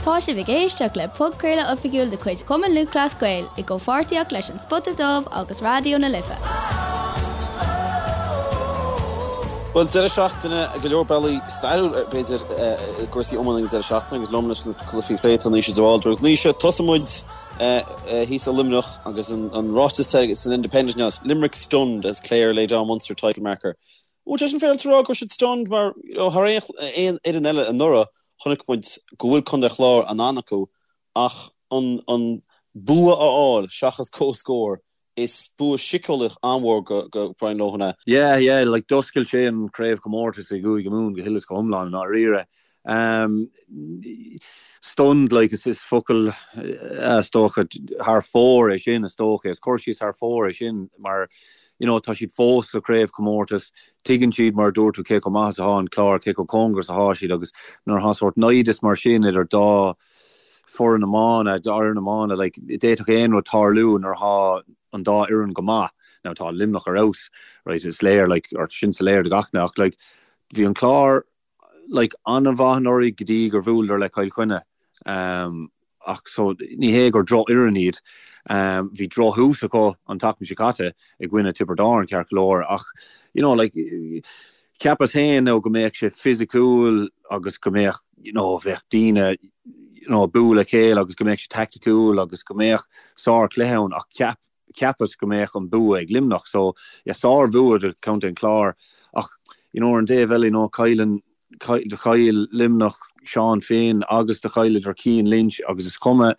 Tá sibh ag éisteacht le podchraoladh oifigiúil de chuid Chumann Lúthchleas Gael i gcomhpháirtíocht leis An Spota Dubh agus Raidió na Life. Bhuel, deireadh seachtaine, go leor bealaí stairiúil, b'fhéidir, i gcúrsaí iomána ag an deireadh seachtaine agus liom leis na cluichí a phlé tá Naoise de Bhaldraithe. Agus Naoise, tosóidh muid thíos i Luimneach agus an ráiteas atá san Independent inniu, Limerick stunned as Clare lay down Munster title marker. Bhfuil sé sin féaráilte a rá go raibh siad stunned mar thar aon fhoireann eile anuraidh chonaic muid go bhfuil Contae an Chláir in ann acu ach an bua a fháil seachas comhscór is bua síceolaíoch an-mhór go Brian Lohan é. Yeah, yeah, like d'oscail sé an craobhchomórtas i gCúige Mumhan go huile is go hiomlán i ndáiríre. Um, stunned, like, is, is focal is dócha thar fóir é sin, is dócha, is cur síos thar fóir é sin mar you know, tá siad fós sa chraobhchomórtas, tuigeann siad, mar a dúirt tú, cé chomh maith is atá an Clár, cé chomh cóngarach is atá siad agus nuair atá sórt naimhdeas mar sin idir dá foireann iomána, dá fhoireann iomána, like, d'fhéadfadh aon rud tarlú nuair atá an dá fhoireann go maith. Now tá Luimneach ar fheabhas, right, is léir, like, or sin soiléir do gach duine, ach like, bhí an Clár, like, an-mhaith anuraidh go dtí gur bhuaileadar le Cill Chainnigh. Um, ach so ní hé gur drochfhoireann iad. Um, bhí drochthús acu an tseachtain seo caite i gcoinne Tiobraid Árann ceart go leor ach you know, like, cheapas féin now go mbeadh sé fisiciúil agus go mbeadh you know, bheadh daoine you know, ag bualadh a chéile agus go mbeadh sé taicticiúil agus go mbeadh sárchluiche ann ach cheap cheapas go mbeadh an bua ag Luimneach so yeah sár-bhua do Chontae an Chláir ach you know ar an dtaobh eile you know cailleann do chaill Luimneach Seán Finn agus do chailleadar Cian Lynch agus is cuma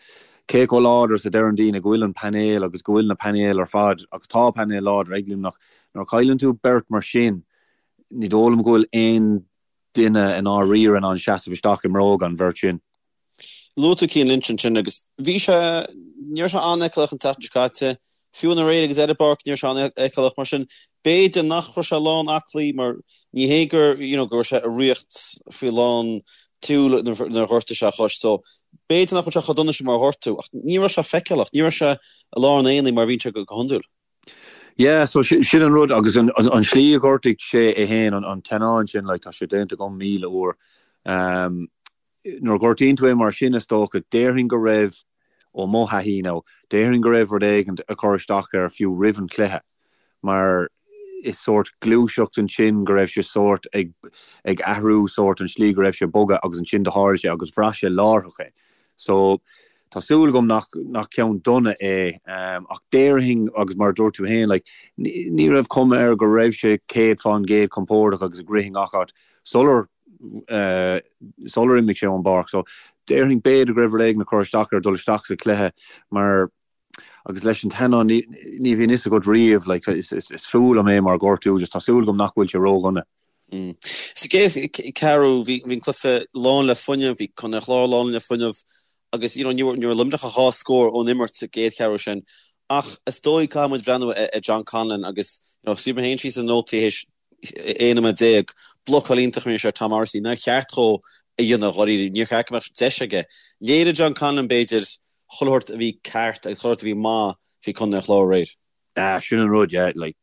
cé chomh láidir is a deireann daoine go bhfuil an painéal agus go bhfuil na painéil ar fad agus tá painéal láidir ag Luimneach nuair a chailleann tú beirt mar sin ní dóigh liom go bhfuil aon duine i ndáiríre in ann seasamh isteach i mbróga an bheirt sin. Luaigh tú Cian Lynch ansin agus bhí sé, ní raibh sé an-fheiceálach an tseachtain seo caite, fiú aréir agus ar an bpáirc ní raibh sé an-fheiceálach mar sin b'fhéidir nach raibh sé lán aclaí mar ní hé gur you know go raibh sé i riocht faoi lán tseoil nuair a ghortaigh sé a chois so b'fhéidir nach bhfuil sé chomh dona sin mar a dúirt tú ach ní raibh sé feiceálach, ní raibh sé i lár an aonaigh mar a bhíonn sé go hiondúil. Yeah, so sin an rud agus an slí a ghortaigh sé é féin, an teannán sin, like tá sé déanta agam 1,000 uair. Um, Nuair a ghortaíonn tú é mar sin, is dócha, déarfainn go raibh, ó mo thaithí now, déarfainn go raibh rud éigin ag cur isteach air fiú roimh an chluiche, mar is sórt gluaiseacht ansin go raibh sé sórt ag ag athrú sórt an slí go raibh sé ag bogadh agus ansin do tharla sé agus bhraith sé láithreach é. So, tá súil agam nach nach ceann dona é ach déarfainn agus mar a dúirt tú féin, like, ní raibh cuma air go raibh sé 100% compordach agus ag rith i ngach áit sular sular imigh sé ón bpáirc. So, déarfainn b'fhéidir go raibh rud éigin ag cur isteach air dul isteach sa chluiche mar agus leis an teannán ní ní bhíonn fhios agat riamh like is is is fuath liom é mar ghortú just tá súil agam nach bhfuil sé ródhona. Sa gcéad ceathrú bhí bhí an cluiche lán le fuinneamh, bhí Contae an Chláir lán le fuinneamh agus you know ní raibh Luimneach ach dhá scór ón imirt sa gcéad cheathrú sin ach is dóigh caithfidh muid breathnú ar John Conlon agus you know scríobh mé féin síos na nótaí théis 11 nóiméad, blocáil iontach a rinne sé ar Tom Morrissey, nár cheart dhó a dhéanamh dháiríre, níor cheart go mbeadh deis aige. Léirigh John Conlon, b'fhéidir, chuile shórt a bhí ceart agus chuile shórt a bhí maith faoi Chontae an Chláir aréir. Ah, sin an rud, yeah, like,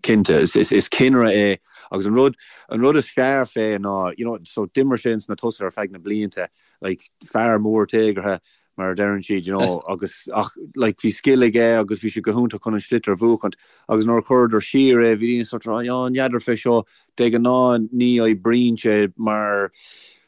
cinnte, is, is, is cinnire é agus an rud, an rud is fearr fé ná, you know, so d'imir sé ins na tosaithe ar feadh na blianta, like, fear mór téagartha, mar a deireann siad, you know, agus ach like bhí scil aige agus bhí sé go hiontach chun an sliotar a bhuachaint agus nuair a chuireadar siar é bhí daoine sort of oh n'fheadar fé seo, de ghnáth ní oibríonn sé mar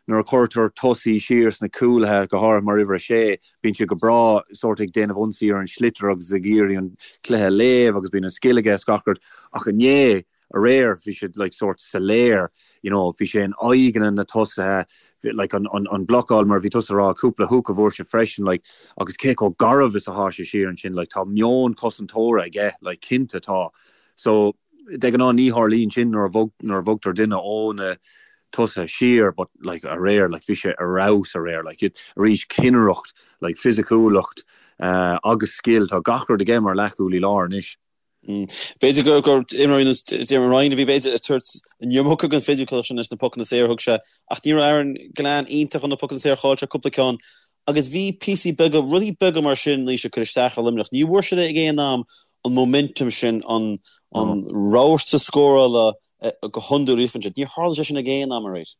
nuair a chuirtear tosaí siar sna cúlaithe, go háirithe mar uimhir a sé, bíonn sé go breá sort ag déanamh ionsaí ar an sliotar agus ag iarraidh an cluiche a léamh agus bíonn an scil aige is gach rud ach inné aréir bhí sé like sort soiléir you know bhí sé in aghaidh na tosaithe like an an an blocáil mar bhí tusa ag rá cúpla hook a bhfuair sé freisin like agus cé chomh garbh is atá sé siar ansin like tá meon cosantóra aige like cinnte tá so de ghnáth ní tharlaíonn sin nuair a bhog nuair a bhogtar duine ó na tosaithe siar but like aréir like bhí sé ar fheabhas aréir like arís cinnireacht like fisiciúlacht uh, agus scil tá gach rud aige mar leathchúlaí láir anois. B'fhéidir gur gur imreoirí ar nós Diarmuid Ryan a bhí b'fhéidir ag tabhairt an iomarca den fisiciúlacht sin leis na pocanna saora a thug sé ach ní raibh Aaron Gillane iontach ar na pocanna saora, chaill sé cúpla ceann agus bhí píosaí beaga, rudaí beaga mar sin anois ag cur isteach ar Luimneach. Ní bhfuair siad ag aon am an momentum sin, an an rabharta scórála go hiondúil a fhaigheann siad. Níor tharla sé sin ag aon am aréir.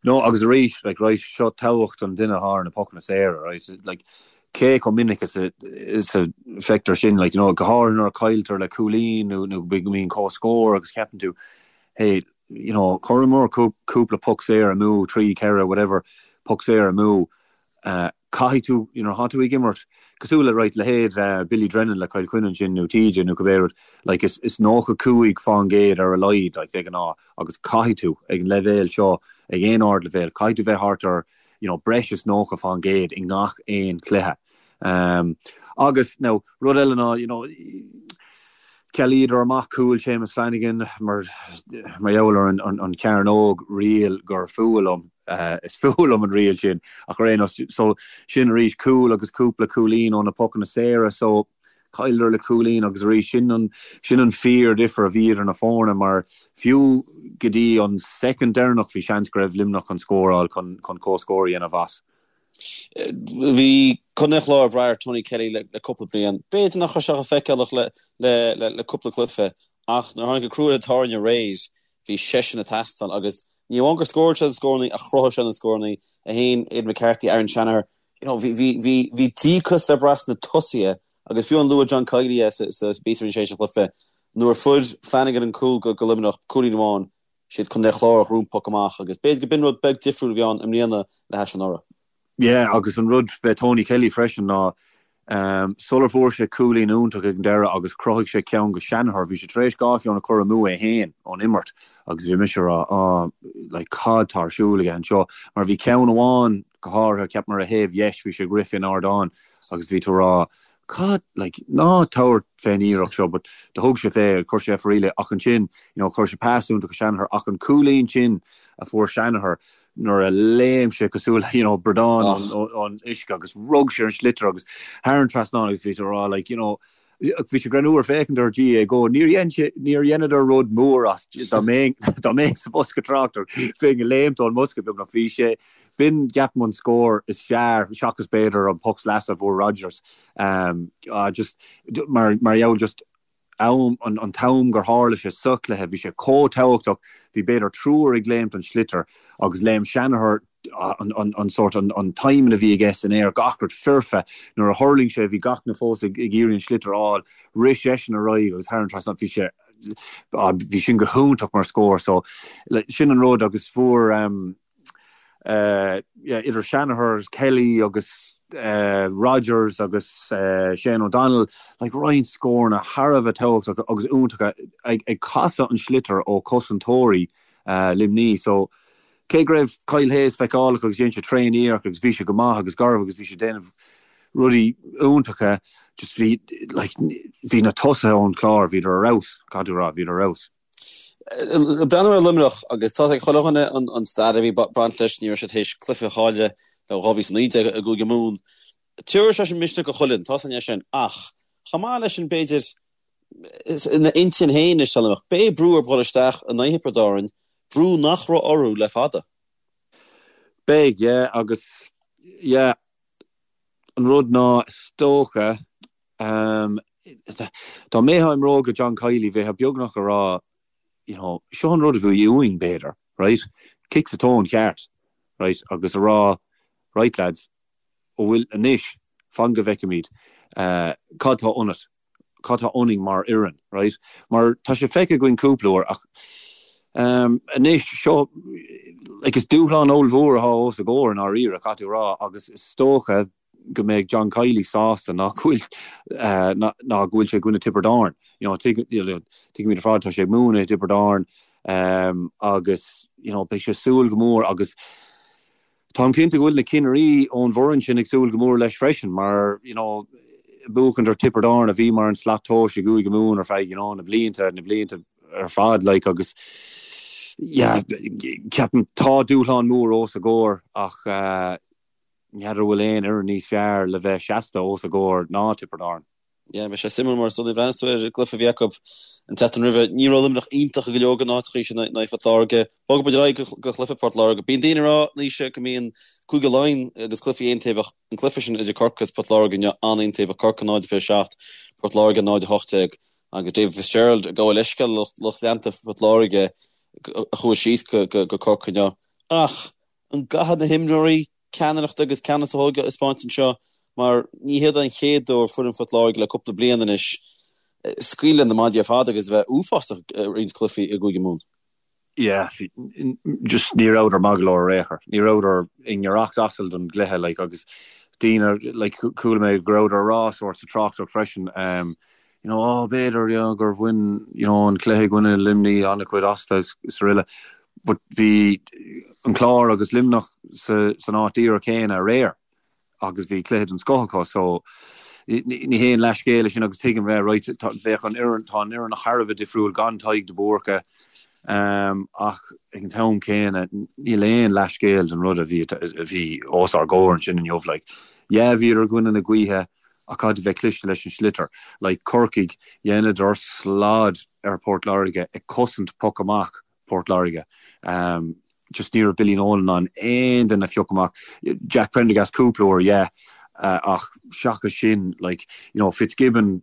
No, agus arís, like, right, seo tábhacht an duine atá ar na pocanna saora, right, like, cé chomh minic is a, is a feictear sin, like, you know, go háirithe nuair a cailltear le cúilín nó, nó go mbíonn comhscór agus ceapann tú, hey, you know, chuireamar cúpla poc saor amú, 3, 4, whatever, poc saor amú, Caithfidh tú, you know, tá tú ag imirt cosúil le, right, leithéid Billy Drennan le Cill Chainnigh ansin nó TJ nó cibé rud, like is, is 95% ar a laghad, like, de ghnáth agus caithfidh tú ag an leibhéal seo, ag aon ardleibhéal, caithfidh tú bheith thart ar, you know, breis is 90% i ngach aon chluiche. Um, agus, now, rud eile ná, you know, Chealaíodar amach cúl Séamus Flanagan mar mar gheall ar an an chearnóg riail gur fuath liom. Is fuath liom an riail sin ach ar aon nós so sin arís cúl agus cúpla cúilín ó na pocanna saora so chailleadar le cúilín agus arís sin an sin an fíor difear a bhí idir na foirne mar fiú go dtí an soicind deireanach bhí seans go raibh Luimneach chun scóráil chun chun comhscór a dhéanamh as. Bhí Contae an Chláir ag brath ar Tony Kelly le cúpla bliain. B'fhéidir nach raibh sé chomh feiceálach le cúpla cluiche ach nuair a tháinig an crú ar an tairne aréir, bhí seisean ag teastáil agus ní amháin gur scóráil sé na scórannaí ach chruthaigh sé na scórannaí é féin, Aidan McCarthy, Aaron Shanagher. You know, bhí, bhí, bhí, bhí díocas le brath sna tosaithe agus fiú amháin luaigh John Kiely é sa, sa bpíosa a rinne sé tar éis an chluiche nuair a fuair Flanagan an cúl go, go Luimneach, cúilín amháin, Siad Contae an Chláir a ghnóthaigh an poc amach agus b'fhéidir go b'in rud beag difriúil a bhí ann i mbliana le hais anuraidh. Yeah, agus an rud fé Tony Kelly freisin ná sular fuair sé cúilín iontach ag an deireadh agus chruthaigh sé ceann go Shanagher, bhí sé tar éis dhá cheann a chur amú é féin ón imirt agus bhí mise ag rá ah like cad tá ar siúl aige anseo mar bhí ceann amháin go háirithe ceapaim ar a thaobh dheis bhí sé ag rith fén ardán agus bhí tú ag rá cad like ná tabhair fén iarracht seo but do thug sé fé chuir sé faraor é ach ansin you know chuir sé pas iontach go Shanagher ach an cúilín sin a fuair Shanagher nuair a léim sé cosúil le you know bradán ón uisce agus rug sé ar an sliotar agus thar an trasnán agus bhí tú ag rá like you know bhí sé greannmhar féachaint ar GAAGO níor dhein sé níor dheineadar rud mór as dá mbeinn dá mbeinn sa bhosca tráchtaireachta bheinn ag léimt ón mbosca beagnach bhí sé B'in, ceapaim, an scór is fearr, seachas b'fhéidir an poc sleasa a fuair Rodgers. Just mar mar gheall just am, an an t-am gur tharla sé sa chluiche, bhí sé chomh tábhachtach, bhí b'fhéidir triúr ag léimt don sliotar agus léim Shanagher an an an sórt an an timing a bhí aige san aer, gach rud foirfe. Nuair a thuirling sé bhí gach duine fós ag ag iarraidh an sliotar a fháil, rith seisean ar aghaidh agus thar an trasnán, bhí sé bhí sin go hiontach mar scór so sin an rud agus fuair idir Shanagher, Kelly agus Rodgers agus Shane O'Donnell, like roinnt scóranna thar a bheith tábhachtach agus iontacha ag casadh an sliotar ó chosantóirí Luimní. So cé go raibh Kyle Hayes feiceálach agus dhein sé tréan iarracht agus bhí sé go maith agus garbh agus bhí sé ag déanamh rudaí iontacha, just bhí like bhí na tosaithe ón Chlár, bhíodar ar fheabhas, caithfidh tú a rá, bhíodar ar fheabhas. Breathnú ar Luimneach agus tá ag chuile dhuine an stair a bhí baint leis, ní raibh siad théis cluiche a chailleadh le 2019 i gCúige Mumhan. Tabharfaidh sé sin misneach do chuile dhuine, tá a fhios againn é sin, ach chomh maith leis sin b'fhéidir ina intinn féin anois tá Luimneach, beidh brú orthu dhul isteach in aghaidh Thiobraid Árann, brú nach raibh orthu le fada. Beidh, yeah, agus yeah, an rud ná is dócha, Dá mbeifeá i mbróga John Kiely, bheifeá beagnach ag rá, you know, seo an rud a bhí uainn, b'fhéidir, right? Cic sa tóin cheart, right? Agus a rá, right lads, an bhfuil anois, fan go bhfeicfimid, cad tá ionat, cad tá ionainn mar fhoireann, right? Mar tá sé feicthe againn cúpla uair ach anois seo, like, is dúshlán ollmhór atá os a gcomhair i ndáiríre, caithfidh tú a rá, agus is dócha, go mbeidh John Kiely sásta ná go bhfuil ná go bhfuil sé i gcoinne Tiobraid Árann. You know, tuigimid ar fad tá sé ag múineadh i dTiobraid Árann agus you know, beidh sé ag súil go mór agus táim cinnte go bhfuil na cinnirí ón bhfoireann sin ag súil go mór leis freisin mar you know, buachaint ar Tiobraid Árann a bhí mar an slat tomhais i gCúige Mumhan ar feadh you know, na blianta na blianta ar fad like agus yeah, ceapaim tá dúshlán mór os a gcomhair ach uh, N'fheadar an bhfuil aon fhoireann níos fearr le bheith seasta os a gcomhair ná Tiobraid Árann. Yeah, bhí sé suimiúil mar is dóigh breathnaíos tú ar an gcluiche a bhí acu an tseachtain roimhe. Ní raibh Luimneach iontach i go leor de na háiteachaí sin in aghaidh Phort Láirge. Bogfaidh muid ar aghaidh go chluiche Port Láirge. Bíonn daoine ag rá, Naoise, go mbíonn Cúige Laighean agus cluichí aontaobhach. An cluiche sin idir Corcaigh agus Port Láirge inniu an-aontaobhach. Corcaigh 0-27, Port Láirge 0-18 agus David Fitzgerald ag gabháil leithscéal le lucht leanta Phort Láirge a chuaigh síos go Corcaigh inniu. Ach. An gcaithfidh na himreoirí ceannaireacht agus ceannas a thógáil a thaispeáint anseo mar ní hiad an chéad uair foireann Phort Láirge le cúpla bliain anois scaoileadh na maidí ar fad agus a bheith uafásach i roinnt cluichí i gCúige Mumhan. Yeah, just ní rabhadar maith go leor ar aon chor. Ní rabhadar i ngiorracht asail don gcluiche like agus daoine like chuala mé go rabhadar ag rá sórt sa tráchtaireacht freisin um, you know, oh b'fhéidir you know, gur bhain you know, an cluiche i gcoinne Luimnigh an-chuid astu is araile. But bhí an Clár agus Luimneach sa, san áit díreach céanna aréir agus bhí cluiche den scoth acu so ní haon leathscéal é sin agus tuigim bheith right bheadh an fhoireann tá an fhoireann thar a bheith difriúil gan Tadhg de Búrca um, ach ag an t-am céanna níl aon leathscéal den rud a bhí a bhí os ár gcomhair ansin inniu like yeah bhíodar i gcoinne na gaoithe ach caithfidh tú bheith cliste leis an sliotar. Like Corcaigh, dheineadar slad ar Port Láirge ag cosaint poc amach Port Láirge. Um, just ní raibh Billy Nolan in ann aon duine a phiocadh amach. Jack Prendergast cúpla uair, yeah, uh, ach seachas sin, like, you know, Fitzgibbon,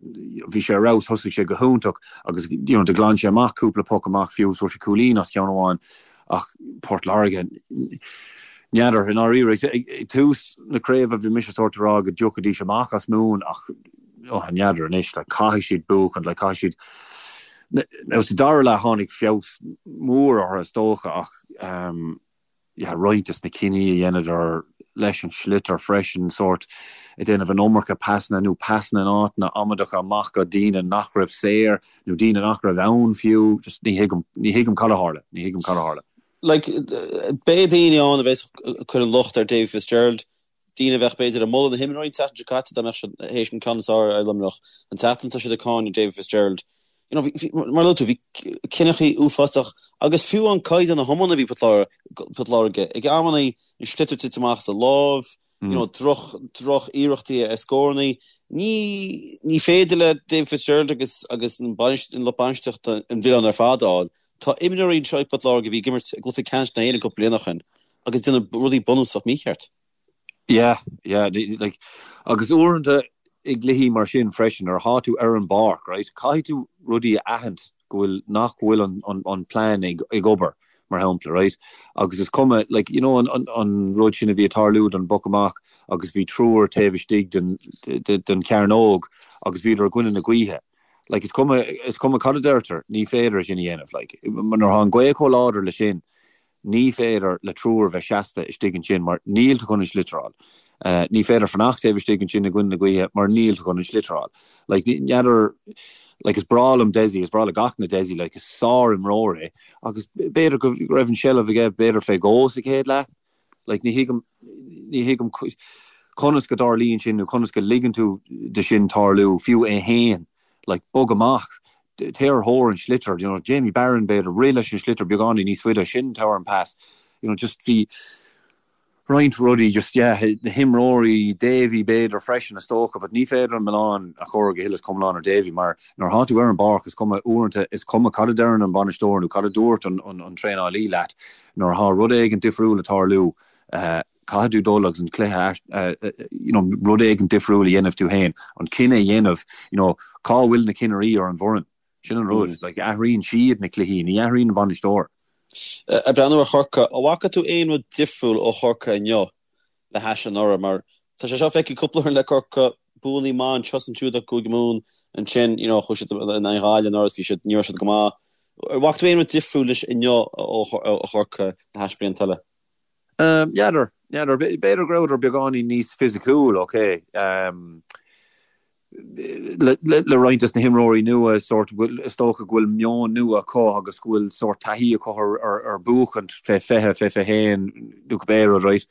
bhí sé ar fheabhas, thosaigh sé go hiontach agus, you know, do ghlan sé amach cúpla poc amach fiú, fuair sé cúilín as ceann amháin. Ach Port Láirge, n'fheadar, i ndáiríre, ag tús na craoibhe bhí mise sórt ag rá go dtiocfaidís amach as Mumhain ach oh, n'fheadar anois, like, caithfidh siad buachan, like, caithfidh siad Now sa dara leath tháinig feabhas mór orthu is dócha ach um, yeah, roinnt des na cinní a dheineadar leis an sliotar freisin, sórt ag déanamh an iomarca pasanna nó pasanna in áiteanna amaideacha amach go daoine nach raibh saor nó daoine nach raibh ann fiú, just ní thuigim, ní thuigim cad a tharla, ní thuigim cad a tharla. Like, beidh daoine ann a bheas ag cur an locht ar Davy Fitzgerald, daoine a bheadh b'fhéidir ag moladh na himreoirí an tseachtain seo caite dá mbeadh siad théis an ceann is fearr ar Luimneach an tseachtain seo siad ag cáineadh Davy Fitzgerald. You know, bhí, mar a luaigh tú, bhí cinneachaí uafásach agus fiú an caighdeán na hiomána a bhí Port Láirge ag amannaí an sliotar tite amach as a láimh, you know, droch, droch iarrachtaí ar scórannaí. Ní, ní féidir le Davy Fitzgerald agus, agus an bainist, an lucht bainistíochta an milleán ar fad a fháil. Tá imreoirí anseo ag Port Láirge a bhí ag imirt i gcluiche ceannais na hÉireann cúpla bliain ó shin. agus déanamh rudaí bunúsach mícheart. Yeah, yeah, like, agus uaireanta i gcluichí mar sin freisin, nuair atá tú ar an bpáirc, right, caithfidh tú rudaí a aithint go bhfuil, nach bhfuil an, an, an plean ag, ag obair, mar shampla, right, agus is cuma, like, you know, an, an, an rud sin a bhí ag tarlú don bpoc amach agus bhí triúr taobh istigh den, den, den chearnóg agus bhíodar i gcoinne na gaoithe. Like, is cuma, is cuma cad a deirtear, ní féidir é sin a dhéanamh, like, nuair atá an ghaoth chomh láidir le sin, Ní féidir le triúr bheith seasta istigh ansin mar níl tú chun an sliotar a fháil. Ní féidir fanacht taobh istigh ansin i gcoinne na gaoithe mar níl tú chun an sliotar a fháil. Like, n'fheadar, like, is breá liom Dessie, is breá le gach duine Dessie, like, is sár-imreoir é agus b'fhéidir go raibh an seilbh aige b'fhéidir fé dhó sa chéad leath. Like, ní thuigim, ní thuigim conas go dtarlaíonn sin nó conas go ligeann tú de sin tarlú, fiú é fhéin. Like, bog amach, téir ar thóir an sliotar, you know, Jamie Barron b'fhéidir, rith leis an sliotar beagáinín níos faide, sin tabhair an pas, you know, just bhí roinnt rudaí just, yeah, na himreoirí, Davy b'fhéidir freisin is dócha, but ní féidir an milleán a chur go huile is go hiomlán ar Davy mar nuair atá tú ar an bpáirc is cuma uaireanta is cuma cad a deireann an bainisteoir nó cad a dúirt an, an, an traenálaí leat, nuair atá rud éigin difriúil ag tarlú, eh, Caithfidh tú dul agus an cluiche, you know, rud éigin difriúil a dhéanamh tú féin, an cinneadh a dhéanamh, you know, cá bhfuil na cinnirí ar an bhfoireann? Sin an rud, like, athraíonn siad na cluichí, ní athraíonn an bainisteoir. Ag breathnú ar Chorcaigh, an bhfaca tú aon rud difriúil ó Chorcaigh inniu le hais anuraidh? Mar tá sé seo feicthe cúpla uair le Corcaigh, buanna maith anseo is ansiúd acu i gCúige Mumhan, ansin, you know, chuaigh siad in aghaidh Ghaillimh anuraidh is bhí siad, ní raibh siad go maith. An bhfaca tú aon rud difriúil leis inniu ó Chorcaigh le hais blianta eile? N'fheadar, n'fheadar. B'fhéidir go rabhadar beagáinín níos fisiciúil, ok. Le roinnt des na himreoirí nua, sórt, is dócha go bhfuil meon nua acu agus go bhfuil sórt taithí acu ar buachaint fé 20, fé 21 nó cibé rud, right?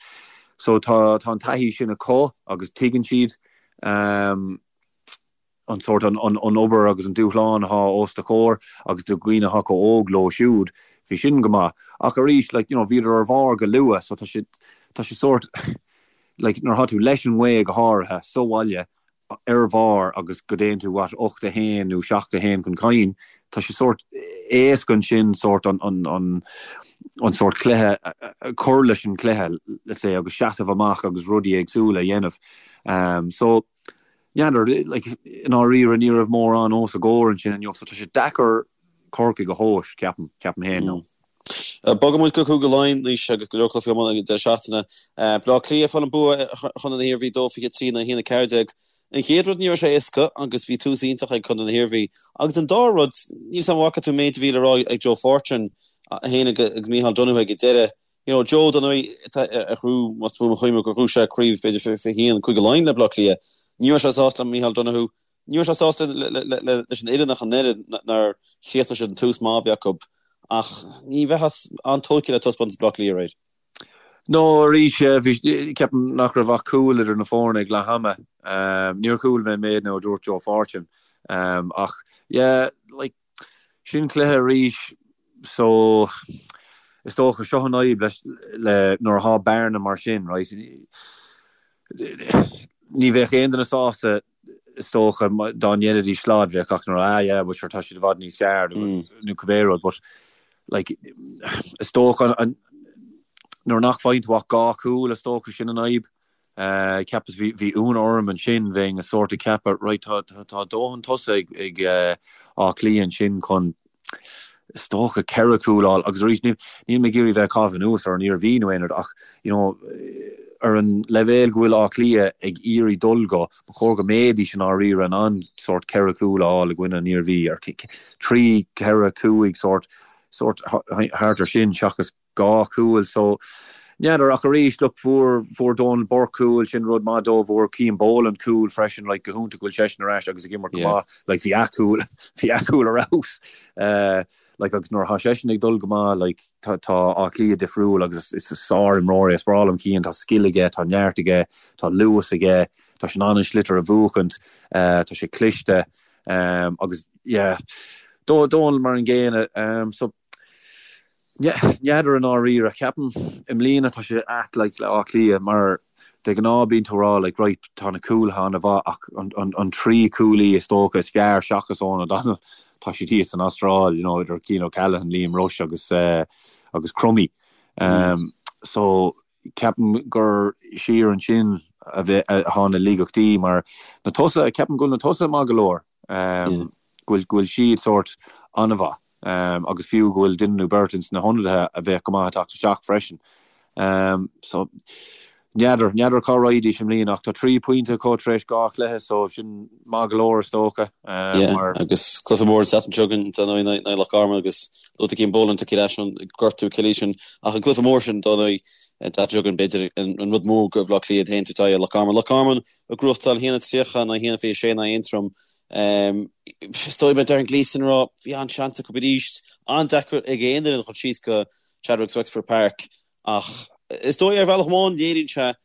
So tá an taithí sin acu agus tuigeann siad. an sórt, an obair agus an dúshlán atá os do chomhair agus do dhaoine atá chomh óg leo siúd, bhí sin go maith. Ach arís, like, you know, bhíodar ar bharr go luath so tá sé, tá sé sórt, like, nuair atá tú leis an ngaoth go háirithe sa bhaile ar bharr agus go dtéann tú, what, 8-1 nó 7-1 chun cinn, tá sé sórt éasca ansin sórt an, an, an, an sórt cluiche, cur leis an chluiche, let's say, agus seasamh amach agus rudaí éagsúla a dhéanamh. Um, so, N'fheadar, like, i ndáiríre ní raibh mórán os a gcomhair ansin inniu so tá sé deacair Corcaigh a thomhas, ceapaim, ceapaim féin. No. Bogfaidh muid go Cúige Laighean anois agus go leor cluichí iomána ag an deireadh seachtaine. Baile Átha Cliath ag fáil an bua ar Chontae na hIarmhí 2-23 in aghaidh 1-14. An chéad rud ní raibh sé éasca agus bhí tús iontach ag Contae na hIarmhí. Agus an dara rud, níl 's a'm an bhfaca tú an méid a bhí le rá ag Joe Fortune féin agus Micheál Donoghue ag an deireadh. You know, Joe, dar ndóigh, a ghnóthaigh, más buan mo chuimhne, gur ghnóthaigh sé craobh b'fhéidir 21 Cúige Laighean le Baile Átha Cliath. Ní raibh sé sásta le Micheál Donoghue. Ní raibh sé sásta leis an fhoireann ach an oiread nár chríochnaigh siad an tús maith a bhí acu. Ach ní bheifeá an-tógtha le taispeántas Bhaile Átha Cliath aréir. No, arís, bhí, ceapaim nach raibh ach cúl idir na foirne ag leath ama. Níor chuala mé an méid nó a dúirt Joe Fortune. Ach, yeah, like, Sin cluiche arís so is dócha seo an fhadhb leis le nuair atá bearna mar sin right ní bheadh aon duine sásta is dócha dá ndéanfaidís slad bheadh gach duine ah yeah but sure tá siad i bhfad níos fearr nó cibé rud but like is dócha an nuair nach bhfaigheann tú ach dhá chúl is dócha sin an fhadhb. Cheapas, bhí ionadh orm ansin, bheinn a sórt ag ceapadh, right, tá, tá dóthain tosaithe ag, ag Áth Cliath ansin chun, is dócha, ceithre chúl a fháil agus arís, níl, níl mé ag iarraidh bheith ag caitheamh anuas ar an Iarmhí nó aon rud ach, you know, ar an leibhéal go bhfuil Áth Cliath ag iarraidh dul go, ba chóir go mbeidís i ndáiríre in ann sórt ceithre chúl a fháil i gcoinne an Iarmhí, ar trí, ceithre, cúig, sórt, sórt thart ar sin seachas dhá chúl so n'fheadar ach arís look fuair fuair Donal Burke cúl sin rud maith dó fuair Cian Boland cúl freisin like go hiontach go bhfuil seisean ar ais agus ag imirt go maith like bhí a chúl bhí a chúl ar fheabhas eh like agus nuair atá seisean ag dul go maith like tá tá Áth Cliath difriúil agus is is sár-imreoir é is breá liom Cian tá scil aige tá neart aige tá luas aige tá sé in ann an sliotar a bhuachaint eh tá sé cliste um agus yeah Donal mar an gcéanna um so N'fheadar i ndáiríre. Ceapaim i mbliana tá sé ait like le Áth Cliath mar de ghnáth bíonn tú ag rá like right tá na cúlaithe an-mhaith ach an trí cúlaí is dócha is fearr seachas Eoghan O'Donnell tá siad thíos san Astráil you know idir Cian O'Callaghan, Liam Rushe agus agus Crummey. So ceapaim gur siar ansin a bheith atá na laigeachtaí mar na tosaithe ceapaim go bhfuil na tosaithe maith go leor. Go bhfuil go bhfuil siad sórt an-mhaith. agus fiú go bhfuil duine nó beirt ins na hionadaithe a bheadh go maith ag teacht isteach freisin. So, n'fheadar, n'fheadar cá raghaidís i mbliana ach tá trí phointe acu tar éis dhá chluiche so sin maith go leor is dócha. Yeah, mar... agus cluiche mór an tseachtain seo chugainn dar ndóigh in aghaidh Loch Garman agus luaigh tú Cian Boland tagtha ar ais ón gortú Achilles sin ach an cluiche mór sin dar ndóigh an tseachtain seo chugainn b'fhéidir an rud mór do Bhaile Átha Cliath féin tabhairt aghaidh ar Loch Garman. Loch Garman ag gnóthachtáil 1-30 in aghaidh 1-26 in aghaidh Aontroim Is dóigh mar a deir Gleeson a rá, bhí an-seans acu arís. An-deacair ag aon duine dul síos go Chadwicks Wexford Park ach is dóigh ar bhealach amháin léiríonn sé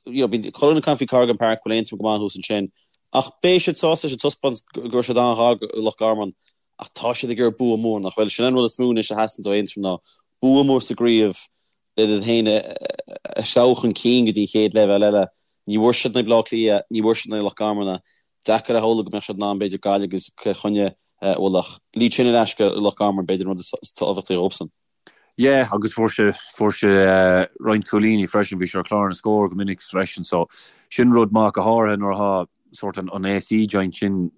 you know, bíonn chuile dhuine ag caint faoi Corrigan Park go bhfuil Aontroim go maith thuas ansin ach beidh siad sásta leis an taispeántas go raibh siad an-ghar do Loch Garman ach tá siad ag iarraidh bua mór nach bhfuil? Sin an rud is mó anois a theastaíonn ó Aontroim ná bua mór sa gcraobh le iad féin a threabhadh chun cinn go dtí an chéad leibhéal eile. Ní bhfuair siad in aghaidh Bhaile Átha Cliath, ní bhfuair siad in aghaidh Loch Garman. Deacair a shamhlú go mbeadh siad in ann b'fhéidir Gaillimh agus Cill Chainnigh a bhualadh ach lead sin ar ais go Loch Garman b'fhéidir an rud is tábhachtaí dhóibhsan. Yeah agus fuair sé fuair sé roinnt cúilíní freisin, bhí sé ar chlár na scór go minic freisin so sin rud maith go háirithe nuair atá sórt an an AC joint sin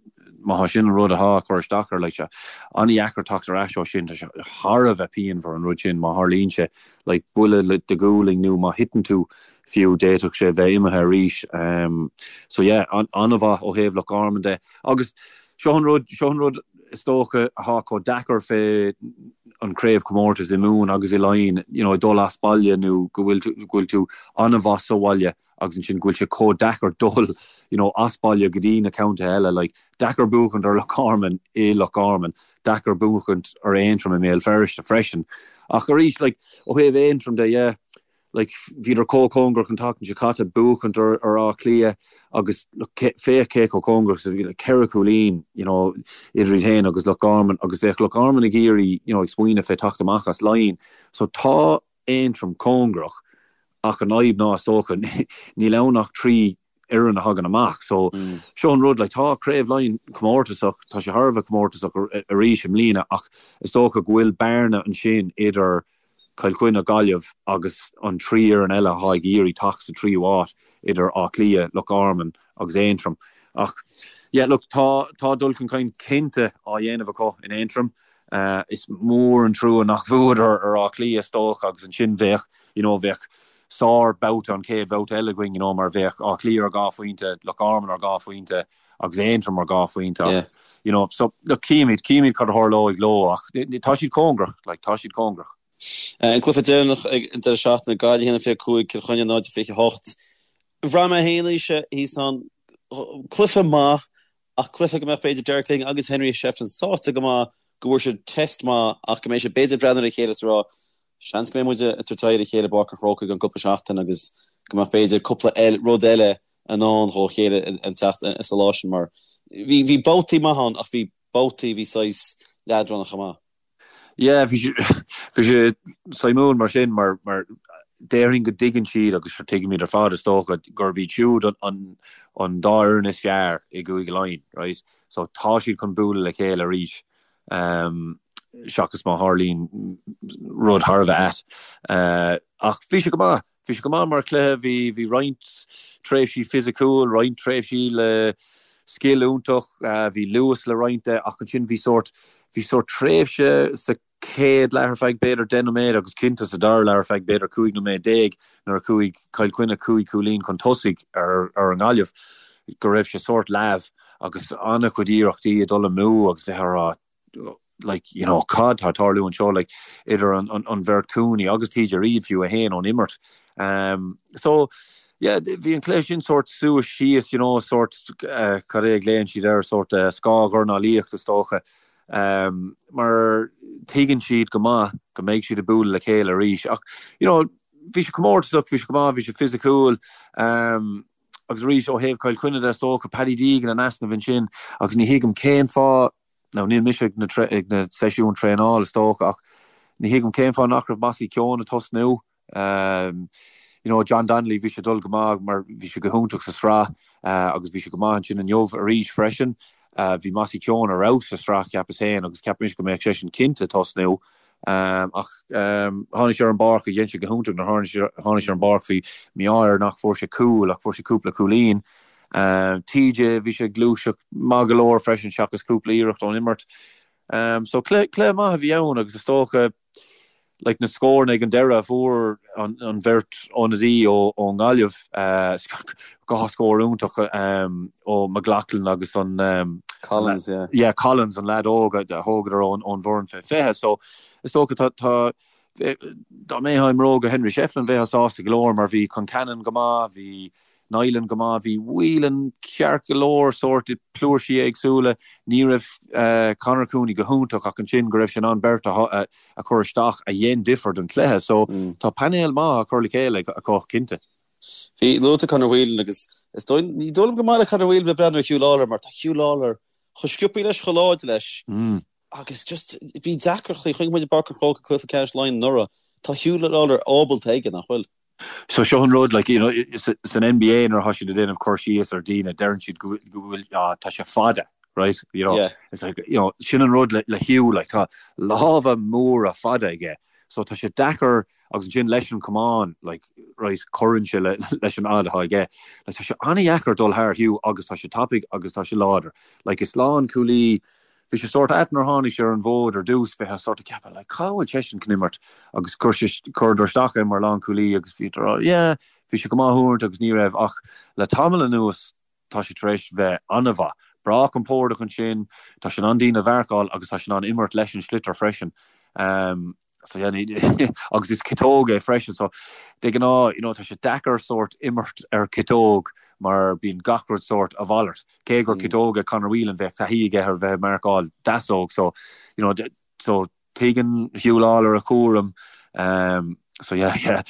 má thá sin an rud athá ag cur isteach air like sé an-dheacair teacht ar ais ó sin tá sé thar a bheith pianmhar an rud sin má tharlaíonn sé like buille le do ghualainn nó má thiteann tú fiú d'fhéadfadh sé bheith imithe arís so yeah an-mhaith ó thaobh Loch Garman de agus seo an rud seo an rud is dócha athá chomh deacair fé an craobhchomórtas i Mumhan agus i Laighin you know dul as baile nó go bhfuil tú go bhfuil tú an-mhaith sa bhaile agus ansin go bhfuil sé chomh deacair dul you know as baile go dtí na contaetha eile like deacair buachaint ar Loch Garman i Loch Garman deacair buachaint ar Aontroim i mBéal Feirste freisin ach arís like ó thaobh Aontroim de yeah like bhíodar chomh cóngarach an tseachtain seo caite buachaint ar ar Áth Cliath agus look féach cé chomh cóngarach is a bhí like ceithre chúilín you know idir iad féin agus Loch Garman agus bheadh Loch Garman ag iarraidh you know ag smaoineamh fé teacht amach as Laighin so tá Aontroim cóngarach ach an fhadhb ná is dócha níl ann ach 3 fhoireann a thagann amach so seo an rud like tá Craobh Laighean comórtasach tá sé thar a bheith comórtasach arís i mbliana ach is dócha go bhfuil bearna ansin idir Cill Chainnigh, Gaillimh agus an 3 fhoireann eile atá ag iarraidh teacht sa tríú háit idir Áth Cliath, Loch Garman agus Aontroim ach yeah look tá tá dul chun cinn cinnte á dhéanamh acu in Aontroim. Is mór an trua nach bhuadar ar Áth Cliath is dócha agus ansin bheadh, you know, bheadh sár babhta an chéad bhabhta eile againn, you know, mar bheadh Áth Cliath ar 2 phointe, Loch Garman ar 2 phointe agus Aontroim ar 2 phointe ach, you know, so look, címid, címid cad a tharlóidh leo ach tá siad cóngarach, like, tá siad cóngarach. An cluiche deireanach ag an deireadh seachtaine, Gaillimh 1-25, Cill Chainnigh 0-28. Bhraith mé féin Naoise thíos ann, cluiche maith ach cluiche go mbeadh b'fhéidir Derek Lyng agus Henry Shefflin sásta go maith go bhfuair siad test maith ach go mbeidh siad b'fhéidir ag breathnú ar a chéile is ag rá seans go mbeidh muid ag tabhairt aghaidh ar a chéile i bPáirc an Chrócaigh i gceann cúpla seachtain agus go mbeadh b'fhéidir cúpla rud eile i ndán dhó chéile an tseachtain sa lá sin mar bhí bhí babhtaí maith ann ach bhí babhtaí bhí saghas leadránach chomh maith. Yeah, bhí sé, bhí sé suimiúil mar sin mar, mar déarfainn go dtuigeann siad agus sure tuigimid ar fad is dócha gurb iad siúd an, an, an dá fhoireann is fearr i gCúige Laighean, right? So tá siad chun bualadh le chéile arís um, seachas má tharlaíonn rud thar a bheith ait. Uh, ach bhí sé go maith. Bhí sé go maith mar chluiche, bhí, bhí roinnt tréimhsí fisiciúil, roinnt tréimhsí le scil iontach, bhí luas le roinnt de ach ansin bhí sórt, bhí sórt tréimhse sa chéad leath ar feadh b'fhéidir 10 nóiméad agus cinnte sa dara leath ar feadh b'fhéidir 15 nóiméad nuair a chuaigh Cill Chainnigh 5 chúilín chun tosaigh ar, ar an nGaillimh go raibh sé sórt leamh agus an-chuid iarrachtaí ag dul amú agus bheith á rá like, you know, cad tá ag tarlú anseo, like, idir an, an, an bheirt Cooney agus TJ Reid fiú é féin ón imirt. Um, so, yeah, bhí an cluiche sin sórt suas síos, you know, sórt, uh, cad é a ghlaonn siad air, sórt uh, scáthdhornálaíocht is dócha, um, mar tuigeann siad go maith go mbeidh siad ag bualadh le chéile arís. Ach, you know, bhí sé comórtasach, bhí sé go maith, bhí sé fisiciúil, um, agus arís ó thaobh Chill Chainnigh de is dócha, Paddy Deegan in easnamh ansin agus ní thuigim cén fáth Now níl mise ag na ag na seisiúin traenála is dócha ach ní thuigim cén fáth nach raibh Mossy Keoghan ag tosnú. You know John Donnelly bhí sé ag dul go maith mar bhí sé go hiontach sa sraith agus bhí sé go maith ansin inniu arís freisin. Bhí Mossy Keoghan ar fheabhas sa sraith cheapas féin agus cheap mise go mbeadh seisean cinnte ag tosnú. Ach tháinig sé ar an bpáirc agus dhein sé go hiontach nuair a tháinig sé ar an bpáirc bhí mí-ádh air nach fuair sé cúl ach fuair sé cúpla cúilín. TJ, bhí sé ag gluaiseacht maith go leor freisin seachas cúpla iarracht ón imirt. So cluiche maith a bhí ann agus is dócha like na scóranna ag an deireadh a fuair an bheirt ionadaí ón nGaillimh, dhá scór iontach ó McLaughlin agus an Collins, yeah. Yeah, Collins, an leaid óg a thógadar ón bhfoireann fé 20. So is dócha tá tá dá mbeifeá i mbróga Henry Shefflin bheifeá sásta go leor mar bhí Concannon go maith, bhí Niland go maith, bhí Whelan ceart go leor sórt i bpluairsí éagsúla. Ní raibh Conor Cooney go hiontach ach ansin go raibh sé in ann beirt a chur isteach a dhein difear don chluiche. So tá painéal maith á chur le chéile acu cinnte. Bhí luaite Conor Whelan agus is dóigh, ní dóigh liom gur maith le Conor Whelan bheith ag breathnú ar Huw Lawlor mar tá Huw Lawlor chomh sciobtha leis, chomh láidir leis agus just bíonn deacrachtaí, chonaic muid i bPáirc an Chrócaigh cluiche ceannais Laighean anuraidh, tá Huw Lawlor ábalta aige, nach bhfuil? So seo an rud, like, you know, san NBA nuair atá siad ag déanamh cur síos ar daoine, deireann siad go bhfuil, ah, tá sé fada, right? You know, yeah. it's like, you know, sin an rud le, le Huw, like, tá lámha móra fada aige. So tá sé deacair agus ansin leis an camán, like, right, cuireann sé le, leis an fhad atá aige. Like, tá sé an-dheacair dul thar Huw agus tá sé tapaidh agus tá sé láidir. Like, is lánchúlaí Bhí sé sórt ait nuair a tháinig sé ar an bhfód ar dtús, bheifeá sórt ag ceapadh like cá bhfuil seisean chun imirt agus chuir sé, chuireadar isteach é mar lánchúlaí agus bhí rá yeah bhí sé go maith uaireanta agus ní raibh ach le tamall anuas tá sé tar éis bheith an-mhaith. Breá compordach ansin, tá sé in ann daoine a mharcáil agus tá sé in ann imirt leis an sliotar freisin. Um, so yeah, agus is ciotóg é freisin so de ghnáth you know, tá sé deacair sórt imirt ar ciotóg mar bíonn gach rud sórt a mhalairt. Cé gur ciotóg é Conor Whelan bheadh taithí aige ar bheith ag marcáil deasóg so you know so tuigeann Huw Lawlor a chúram um, so yeah yeah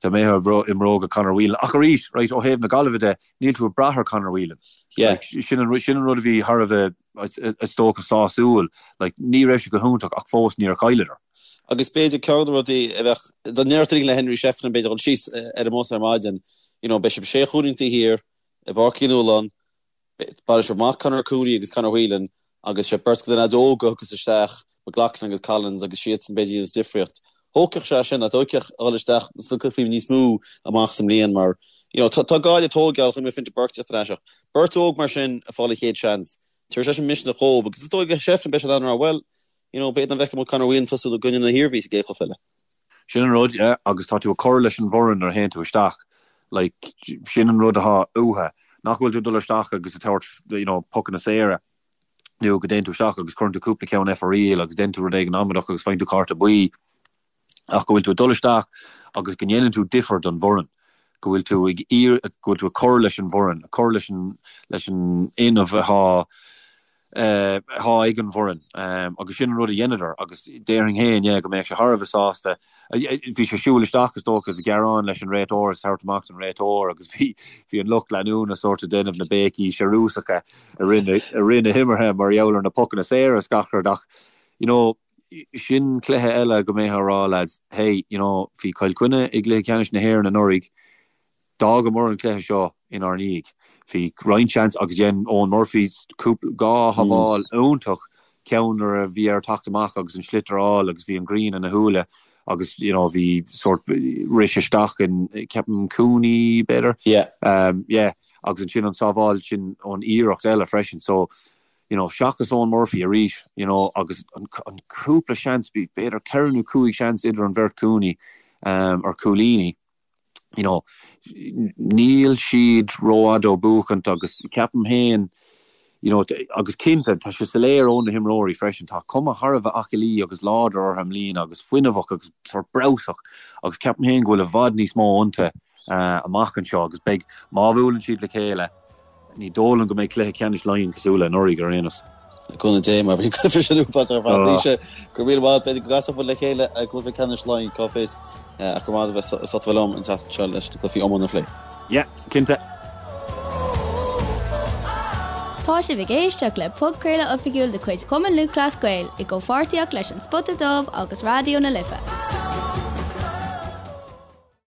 dá mbeifeá i mbróga Conor Whelan ach arís right ó thaobh na Gaillimhe de níl tú ag brath ar Conor Whelan. Yeah. Like, sin an sin an rud a bhí thar a bheith is dócha sásúil like ní raibh sé go hiontach ach fós níor chailleadar. Agus b'fhéidir ceann de na rudaí a bheadh dá ndéarfadh le Henry Shefflin b'fhéidir dul síos ar an mbus ar maidin you know beidh sibh sé chúilín taobh thiar i bPáirc Uí Nualláin, bainfidh sibh amach Conor Cooney agus Conor Whelan agus sé beirt de na leaids óga a thiocfas isteach, McLaughlin agus Collins agus siadsan b'fhéidir a dhéanfas difríocht. Thógfadh sé sin, thógfadh a dhul isteach sna cluichí níos mó amach sa mbliain mar you know tá Gaillimh ag tógáil chonaic mé Fintan Burke teacht ar ais ach beirt óg mar sin ag fáil a chéad seans, tabharfaidh sé sin misneach dhóibh agus is dóigh go Shefflin beidh sé in ann a rá bhuel you. you know, b'fhéidir nach bhfeicfidh muid Conor Whelan tosú i gcoinne na hIarmhí sa gcéad chluiche eile. Sin an rud, yeah, agus tá tú ag cur leis an bhfoireann nuair a théann tú isteach. Like, sin an rud atá uathu. Nach bhfuil tú ag dul isteach agus ag tabhairt, you know, pocanna saora, nó go dtéann tú isteach agus cuireann tú cúpla ceann ar fóraoil agus déanann tú rud éigin amaideach agus faigheann tú cárta buí, ach go bhfuil tú ag dul isteach agus go ndéanann tú difear don bhfoireann, go bhfuil tú ag iarraidh, go bhfuil tú ag cur leis an bhfoireann, ag cur leis an, leis an fhuinneamh atá, atá ag an bhfoireann agus sin an rud a dheineadar agus déarfainn féin, yeah, go mbeadh sé thar a bheith sásta. Bhí sé ag siúl isteach is dócha is ag gearán leis an réiteoir is tabhairt amach don réiteoir agus bhí, bhí an lucht leanúna sórt ag déanamh na béicí searúsacha i rith na, i rith na himeartha mar gheall ar na pocanna saora is gach rud ach, you know, sin cluiche eile go mbeifeá ag rá lads, hey, you know, bhí Cill Chainnigh i gcluiche ceannais na hÉireann anuraidh, D'fhágamar an cluiche seo inár ndiaidh. Bhí roinnt seans agus dhein Eoin Murphy cúpla, dhá shábháil iontach, ceann nuair a bhí air teacht amach agus an sliotar a fháil agus bhí an ghrian ina shúile agus you know bhí sórt rith sé isteach in ceapaim Cooney b'fhéidir? Yeah. Yeah agus ansin an sábháil sin ón iarracht eile freisin so you know seachas Eoin Murphy arís you know agus an an cúpla seans b'fhéidir ceithre nó cúig seans idir an bheirt Cooney um, ar cúilíní. you know, níl siad rófhada ó buachaint agus ceapaim féin, you know, agus cinnte, tá sé soiléir ó na himreoirí freisin, tá cuma thar a bheith aclaí agus láidir orthu i mbliana agus fuinneamhach agus sórt breabhsach agus ceapaim féin go bhfuil i bhfad níos mó iontu amach anseo agus beidh, má bhuaileann siad le chéile, Ní dóigh liom go mbeidh cluiche ceannais Laighean cosúil le anuraidh ar aon nós. Le cúnamh Dé, mar bhí an cluiche sin uafásach ar fad. Naoise, go raibh míle maith, b'fhéidir go gcasfadh muid le chéile i gcluiche ceannais Laighean, cá bhfios, ach go raibh maith agat as ucht a bheith liom an tseachtain seo leis na cluichí iomána a phlé. Yeah, cinnte. Tá sibh ag éisteacht le podchraoladh oifigiúil de chuid Chumann Lúthchleas Gael i gcomhpháirtíocht leis An Spota Dubh agus Raidió na Life.